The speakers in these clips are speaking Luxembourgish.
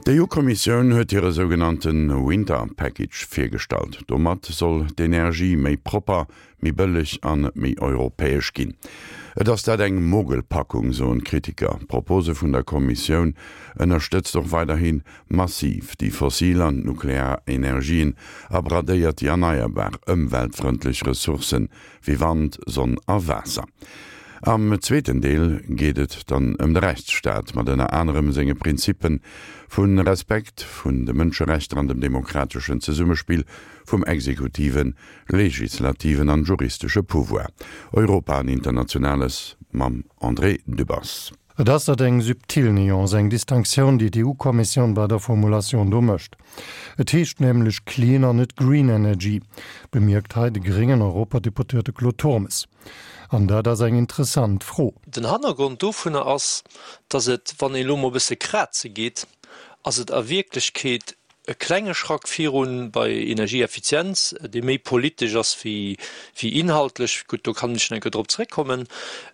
D'EU-Kommissioun huet hire sougenannte Winter Package virgestallt. Domat soll d'Energie méi propper, méi bëlleg an méi europäesch ginn. Et ass dat eng Mogelpackung, soen d'Kritiker. D'Propose vun der Kommissioun ënnerstëtzt och weiderhi massiv déi fossil an d'nuklear Energien a bradéiert déi erneierbar, ëmweltfrëndlech Ressourcen wéi Wand, Sonn a Waasser. Am zweeten Deel geet et dann ëm de Rechtsstaat, mat ënner anerem senge Prinzippe vu Respekt vun de Mënscherechter an dem demokrateschen Zesummespill vum exekutiven, legislativen an juristesche Pouvoir. Europa an Internationales mam André Dübbers. Et ass dat eng subtil Nuance, eng Distinctioun, déi d'EU-Kommissioun bei der Formulatioun do mécht. Et heescht nämlech clean an net green energy, bemierkt hei de gréngen Europadeputéierte Claude Turmes. An dat ass eng interessant Fro. Den Hannergrond dovunner ass, datt et, wann een elo mol e bësse kraze geet, ass et a Wierklechkeet e klenge Schrack virun bei Energieeffizienz, dee méi politesch ass wéi inhaltlech. Gutt, do kann ech nach eng Kéier drop zréckkommen.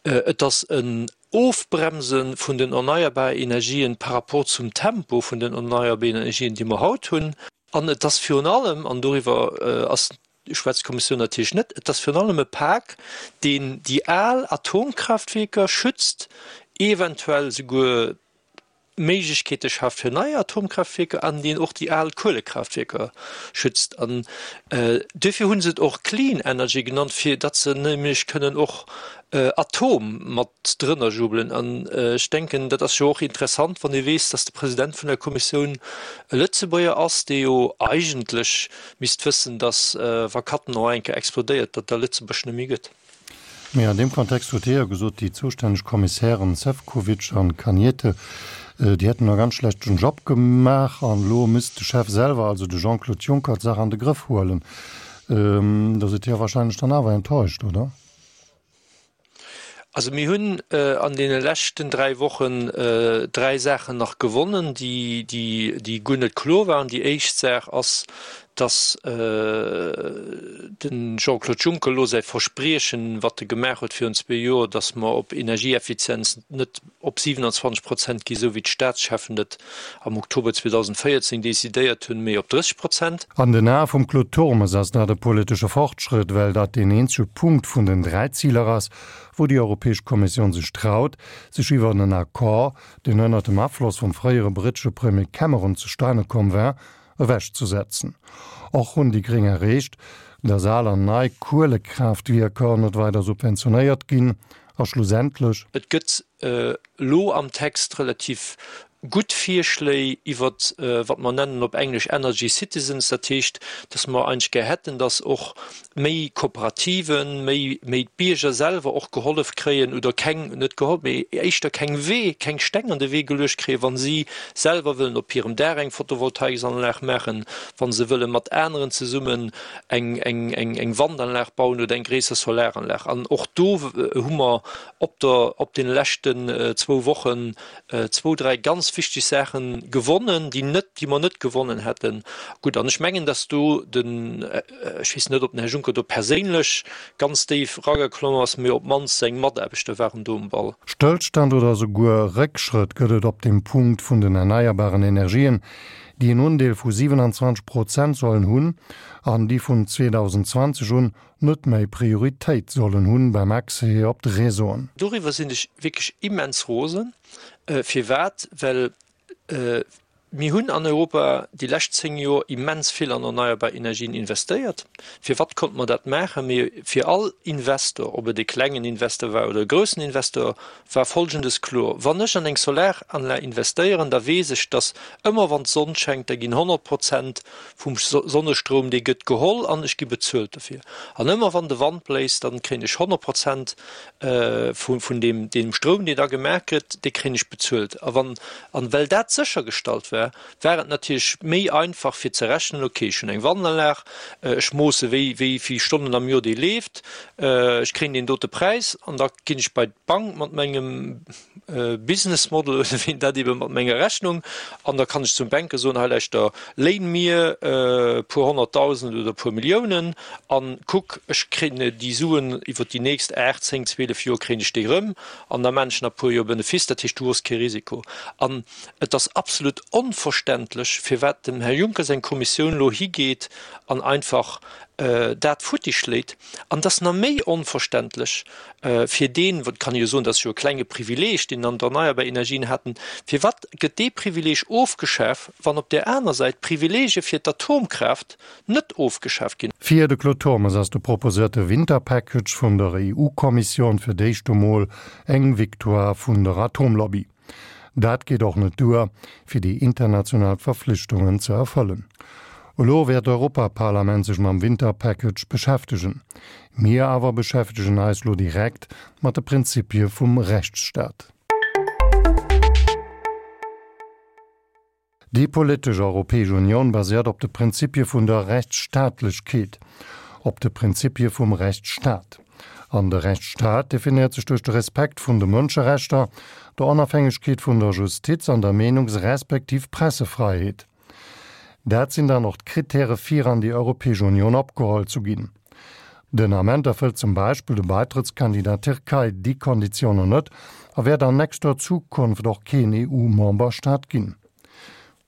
Et ass en Ofbremse vun den erneierbare Energien par rapport zum Tempo vun den erneierbaren Energien, déi mer haut hunn. An et ass virun allem, an doriwwer ass, schwätzt d'Kommissioun natierlech net, et ass virun allem e Pak, deen déi al Atomkraftwierker schützt, eventuell souguer Méiglechkeete schaaft fir nei Atomkraaftwierker an deen och déi al Kuelekraaftwierker schützt. An duerfir hu se et och Clean Energy genannt, fir datt se nämlech kënnen och Atom mat drënner jubelen. An ech denken, dat ass jo och interessant, wann ee weess, datt de President vun der Kommissioun e Lëtzebuerger ass, dee jo eigentlech misst wëssen, datt wa Cattenom eng Kéier explodéiert, datt da Lëtzebuerg net méi gëtt. Mee an deem Kontext huet hie jo gesot, déi zoustänneg Kommissären Sefcovic an Cañete, déi hätten e ganz schlechten Job gemaach an elo misst de Chef selwer, also de Jean-Claude Juncker, d'Saach an de Grëff huelen. Da sidd Dir wahrscheinlech dann awer enttäuscht, oder? Also mir hunn an deene leschten 3 Wochen 3 Saachen nach gewonnen, déi, déi, déi guer net kloer waren. Déi éischt Saach ass, dass de Jean-Claude Juncker elo säi Verspriechen, wat e gemaach huet virun zwee Joer, dass mer op Energieeffizienz net op 27 Prozent gi, esou wéi d'Staatscheffen et am Oktober 2014 decidéiert hunn, mee op 30 Prozent. An den Ae vum Claude Turmes ass dat e politesche Fortschrëtt, well dat deen eenzege Punkt vun den 3 Ziler ass, wou déi Europäesch Kommissioun sech traut, sech iwwer en Accord, deen ënnert dem Afloss vum fréiere brittesche Premier Cameron zustane komm war, ewechzesetzen. Och hunn déi Gréng erreecht, datt al an nei Kuelekraaftwierker net weider subventionéiert ginn a schlussendlech. Et gëtt elo am Text relativ gutt Virschléi iwwert, wat mer nennen op Englesch Energy Citizens, dat heescht, datt mer eigentlech gär hätten, datt och méi Kooperativen, méi, méi d'Bierger selwer och gehollef kréien oder keng, net gehollef, mee éischter keng Wee, keng Steng an de Wee geluecht kréien, wa si selwer wëllen op hirem Daach eng Photovoltaiksanlag maachen, wa se wëlle mat aneren zesummen eng, eng, eng, eng Wandanlag bauen oder eng gréisser Solaranlag. An och do hu mer op der, op deene leschten zwou Wochen zwou, dräi ganz wichteg Saache gewonnen, déi net, déi mer net gewonnen hätten. Gutt, an ech mengen, dass do den, ech weess net, ob den Här Juncker do perséinlech ganz déif erageklomm ass, mee op d'mannst seng Mataarbechter waren do um Ball. Stëllstand oder esouguer Réckschrëtt gëtt et op dem Punkt vun den erneierbaren Energien, déi en Undeel vu 27 Prozent sollen hunn an déi vun 2020 un net méi Prioritéit sollen hunn beim Accès op d'Réseauen. Doriwwer sinn ech wierklech immens rosen. Firwat? Well mir hunn an Europa déi lescht 10 Joer immens vill an erneierbar Energien investéiert. Firwat konnte mer dat maachen? Mee fir all Investor, ob et e klengen Investor war oder e groussen Investor, war Folgendes kloer, Wann ech an eng Solaranlag investéieren, da weess ech, dass ëmmer wann d'Sonn schengt, da ginn 100 Prozent vum Sonnestroum, dee gëtt geholl an ech gi bezuelt dofir. An ëmmer wann de Wand bléist, dann kréien ech 100 Prozent vun deem, deem Stroum, deen da gemaach gëtt, dee kréien ech bezuelt. A wann, an well dat séchergestallt war, war et natierlech méi einfach fir ze rechnen, okay, ech hunn eng Wandanlag, ech moosse wéi, wéi vill Stonnen am Joer déi leeft, ech kréien deen dote Präis an da ginn ech bei d'Bank mat mengem Business Model oder wéi een dat ebe mat menger Rechnung an da kann ech zum Banker soen, hei lauschter, léin mir e puer honnertdausend oder e puer Milliounen an kuck, ech kréien déi Suen iwwer déi nächst 8, 10, 12 Joer kréien ech déi erëm an da maan ech nach e puer Joer Benefice, dat heescht du hues kee Risiko. An et ass absolut onlogesch. onverständlech, firwat dem Här Juncker seng Kommissioun elo higeet an einfach dat futti schléit. An et ass nach méi onverständlech fir deen, et kann ee jo soen, dat ass jo e klenge Privileeg, deen an d'erneierbar Energien haten, firwat gëtt dee Privileeg ofgeschaf, wann op där aner Säit d'Privileege fir d'Atomkraaft net ofgeschaf ginn? Fir de Claude Turmes ass de proposéierte Winterpackage vun der EU-Kommissioun fir d'éischt emol eng Victoire vun der Atomlobby. Dat geet och net duer, fir déi international Verflichtungen ze erfëllen. Elo wäert d'Europaparlament sech mam Winterpackage beschäftegen. Mir awer beschäftegen eis lo direkt mat de Prinzipie vum Rechtsstaat. Déi politesch Europäesch Unioun baséiert op de Prinzipie vun der Rechtsstaatlechkeet, op de Prinzipie vum Rechtsstaat. An de Rechtsstaat definéiert sech duerch de Respekt vun de Mënscherechter, der Onafhängegkeet vun der Justiz an der Meenungs respektiv Pressefreiheet. Dat sinn dann och d'Kritäre fir an déi Europäesch Unioun opgeholl zu ginn. Den Ament erfëllt zum Beispill de Baitrëttskandidat Tierkei déi Konditiounen net a wäert an nächster Zukunft och keen EU-Memberstaat ginn.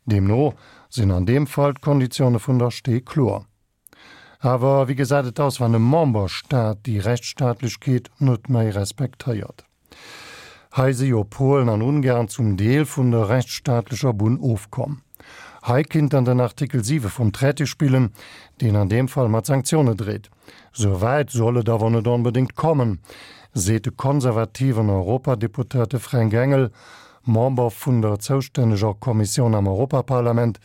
Deemno sinn an deem Fall d'Konditioune vun der Stee kloer. Awer wéi gesäit et aus, wann e Memberstaat déi Rechtsstaatlechkeet net méi respektéiert? Hei si jo Polen an Ungarn zum Deel vun der rechtsstaatlecher Bunn ofkomm. Hei kinnt dann den Artikel 7 vum Traité spillen, deen an deem Fall mat Sanktioune dreet. Sou wäit soll et awer net onbedéngt kommen, seet de konservativen Europadeputéierte Fränk Engel, Member vun der zoustänneger Kommissioun am Europaparlament,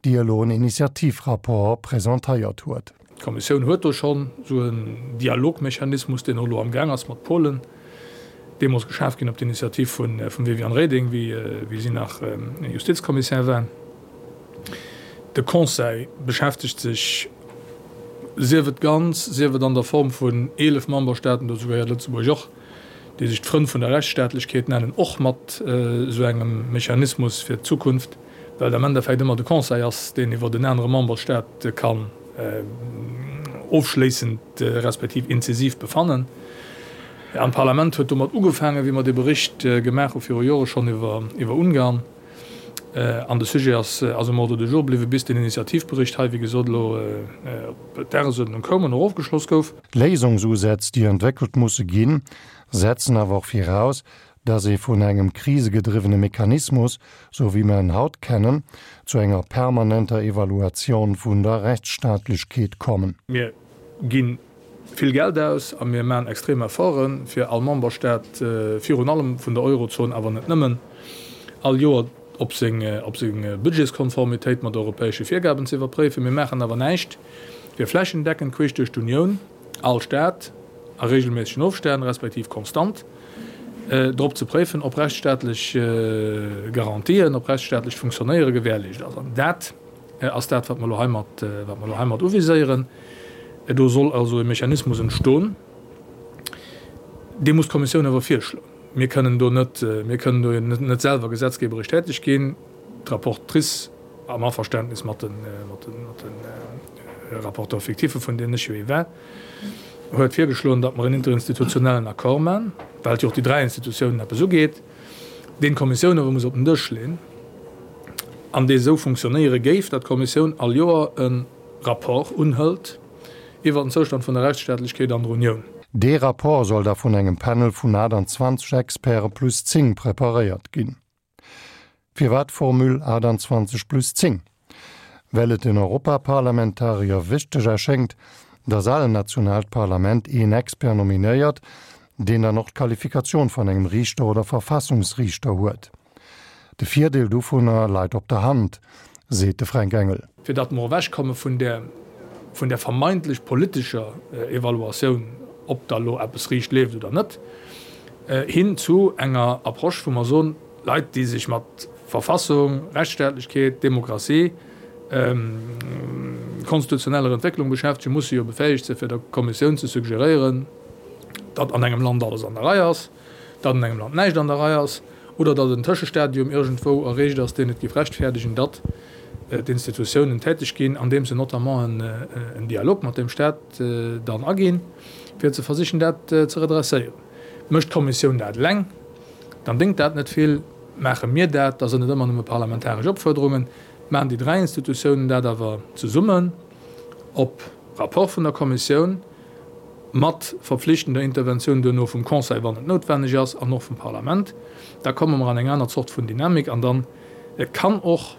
déi elo en Initiativrapport presentéiert huet. D'Kommissioun huet do schonn esou en Dialogmechanismus, deen och elo amgaang ass mat Polen, deemools geschaf ginn op d'Initiativ vum Viviane Reding, wéi si nach Justizkommissär war. De Conseil beschäftegt sech, sief et ganz, sief et an der Form vun 11 Memberstaaten, dozou gehéiert Lëtzebuerg och, déi sech d'Frënn vun der Rechtsstaatlechkeet nennen, och mat esou engem Mechanismus fir d'Zukunft. well et am Endeffekt ëmmer de Conseil ass, deen iwwert en anere Memberstaat kann ofschléissend respektiv inzisiv befannen. An d'Parlament huet domat ugefaangen, wéi mer dee Bericht gemaach hu viru Jore schonn iwwer Ungarn. An de Sujet ass um Ordre du jour bliwwen, bis den Initiativbericht hei, wéi gesot, elo op d'Dagesuerdnung koum an och ofgeschloss gouf. Léisungsusätz, déi entwéckelt musse ginn, setzen awer och viraus, dass ee vun engem krisegedriwwene Mechanismus, sou wéi mer en haut kennen, zu enger permanenter Evaluation vun der Rechtsstaatlechkeet kommen. Mir gi vill Geld aus a mir maachen extrem Efforten, fir all Memberstaat, virun allem vun der Eurozon, awer net nëmmen, all Joer op seng Budgetskonformitéit mat europäesche Virgaben ze iwwerpréifen. Mir maachen awer näischt, fir flächendeckend queesch duerch d'Unioun all Staat a regelméissegen Ofstänn, respektiv konstant, drop ze préifen, ob rechtsstaatlech Garantien, ob rechtsstaatlecht Funktionéiere gewährleescht ass. An dat ass dat, wat mer elo heimat, wat mer elo heimat uviséieren. Do soll also e Mechanismus entstoen, dee muss d'Kommissioun awer virschloen. Mir kënnen do net, mir kënnen do net selwer gesetzgeberesch täteg ginn. D'Rapportrice, am Averständnis mat de, mat de, mat de Rapporteur-fictiffe, vun deenen ech jo ee war, huet virgeschloen, datt mer en interinstitutionellen Accord maachen, well et jo och déi dräi Institutiounen eppes ugeet, deen d'Kommissioun awer muss op den Dësch leeën an dee esou funktionéiere géif, datt d'Kommissioun all Joer e Rapport unhëlt iwwert den Zoustand vun der Rechtsstaatlechkeet an der Unioun. Dee Rapport soll da vun engem Panel vun 28 Experte plus 10 preparéiert ginn. Firwat d'Formule 28 plus 10? Well et den Europaparlamentarier wichteg erschéngt, datt all nationaalt Parlament een Expert nominéiert, deen dann och d'Qualifikatioun vun engem Riichter oder Verfassungsriichter huet. De Virdeel dovunner leit op der Hand, seet de Fränk Engel. Fir datt mer ewechkomme vun där vun där vermeintlech politescher Evaluatioun, ob da lo eppes riicht leeft oder net, hin zu enger Approche, wou mer soen, Leit, déi sech mat Verfassung, Rechtsstaatlechkeet, Demokratie, konstitutioneller Entwécklung beschäftegen, musse jo befäegt sinn, fir der Kommissioun ze suggeréieren, datt an engem Land alles an der Rei ass, datt an engem Land näischt an der Rei ass oder datt en Tëschestadium iergendwou erreecht ass, deen et géif rechtfäerdegen, datt d'Institutiounen täteg ginn, andeems se notamment en Dialog mat deem Stat dann aginn, fir ze versichen, dat ze redresséieren. Mécht d'Kommissioun dat eleng, dann déngt dat net vill. Maache mir dat, da sinn et ëmmer nëmme parlamentaresch Opfuerderungen, maachen déi 3 Institutiounen dat awer zesummen op Rapport vun der Kommissioun, mat verpflichtender Interventioun duerno vum Conseil, wann et noutwenneg ass, an och vum Parlament, da komme mer an eng aner Zort vun Dynamik an dann kann och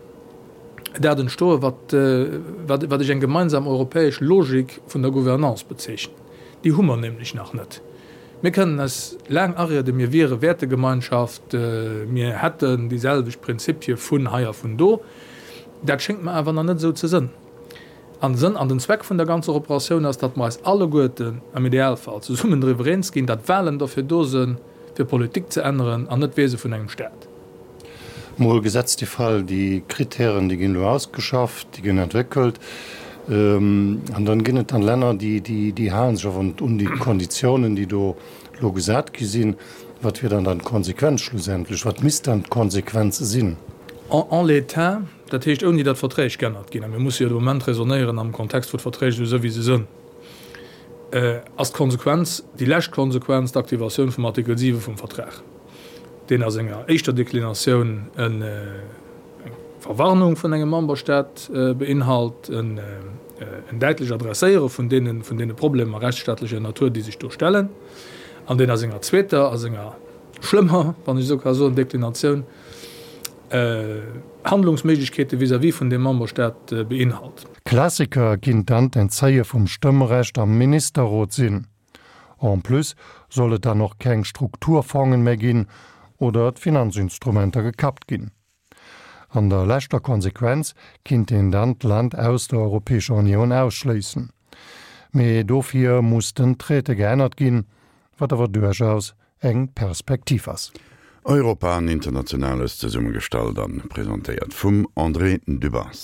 dat entstoen, wat, wat ech eng gemeinsam europäesch Logik vun der Gouvernance bezeechnen. Déi hu mer nämlech nach net. Mir kënnen eis laang arieden, mir wiere Wäertegemeinschaft, mir hätten déi selwecht Prinzipie vun hei a vun do. Dat schéngt mer awer nach net esou ze sënn. An de Sënn an den Zweck vun der ganzer Operatioun ass, datt mer eis alleguerten am Idealfall zesummen driwwer eens ginn, datt Wahlen derfir do sënn, fir Politik ze änneren an net d'Wiese vun engem Staat. Mol gesetzt de Fall, déi Kritären, déi ginn elo ausgeschafft, déi ginn entwéckelt, an dann ginn et dann Länner, déi, déi hale sech awer net un déi Konditiounen, déi do elo gesat gi sinn. Wat wier dann dann d'Konsequenz schlussendlech? Wat misst dann d'Konsequenz sinn? En l'état, dat heescht ouni datt Verträg g'ännert ginn, a mir musse jo de Moment raisonnéieren am Kontext wou d'Verträg esou sënn wéi se sënn, ass d'Konsequenz, déi lescht Konsequenz, d'Aktivatioun vum Artikel 7 vum Vertrag, deen a senger éischter Deklinatioun eng Verwarnung vun engem Memberstaat beinhalt, en däitlech Adresséiere vun deene Problemer rechtsstaatlecher Natur, déi sech do stellen, an deen a senger zweeter, a senger schlëmmer, wann ech esou ka soen, Deklinatioun Handlungsméiglechkeete vis-à-vis vun deem Memberstaat beinhalt. Klassiker kinnt dann d'Entzéie vum Stëmmrecht am Ministerrot sinn. En plus soll et dann och keng Strukturfongen méi ginn oder d'Finanzinstrumenter gekappt ginn. An der leschter Konsequenz kinnt een dann d'Land aus der Europäescher Unioun ausschléissen. Mee dofir muss den Traité geännert ginn, wat awer duerchaus eng Perspektiv ass. Europa an Internationales, zesummegestallt an presentéiert vum André Dübbers.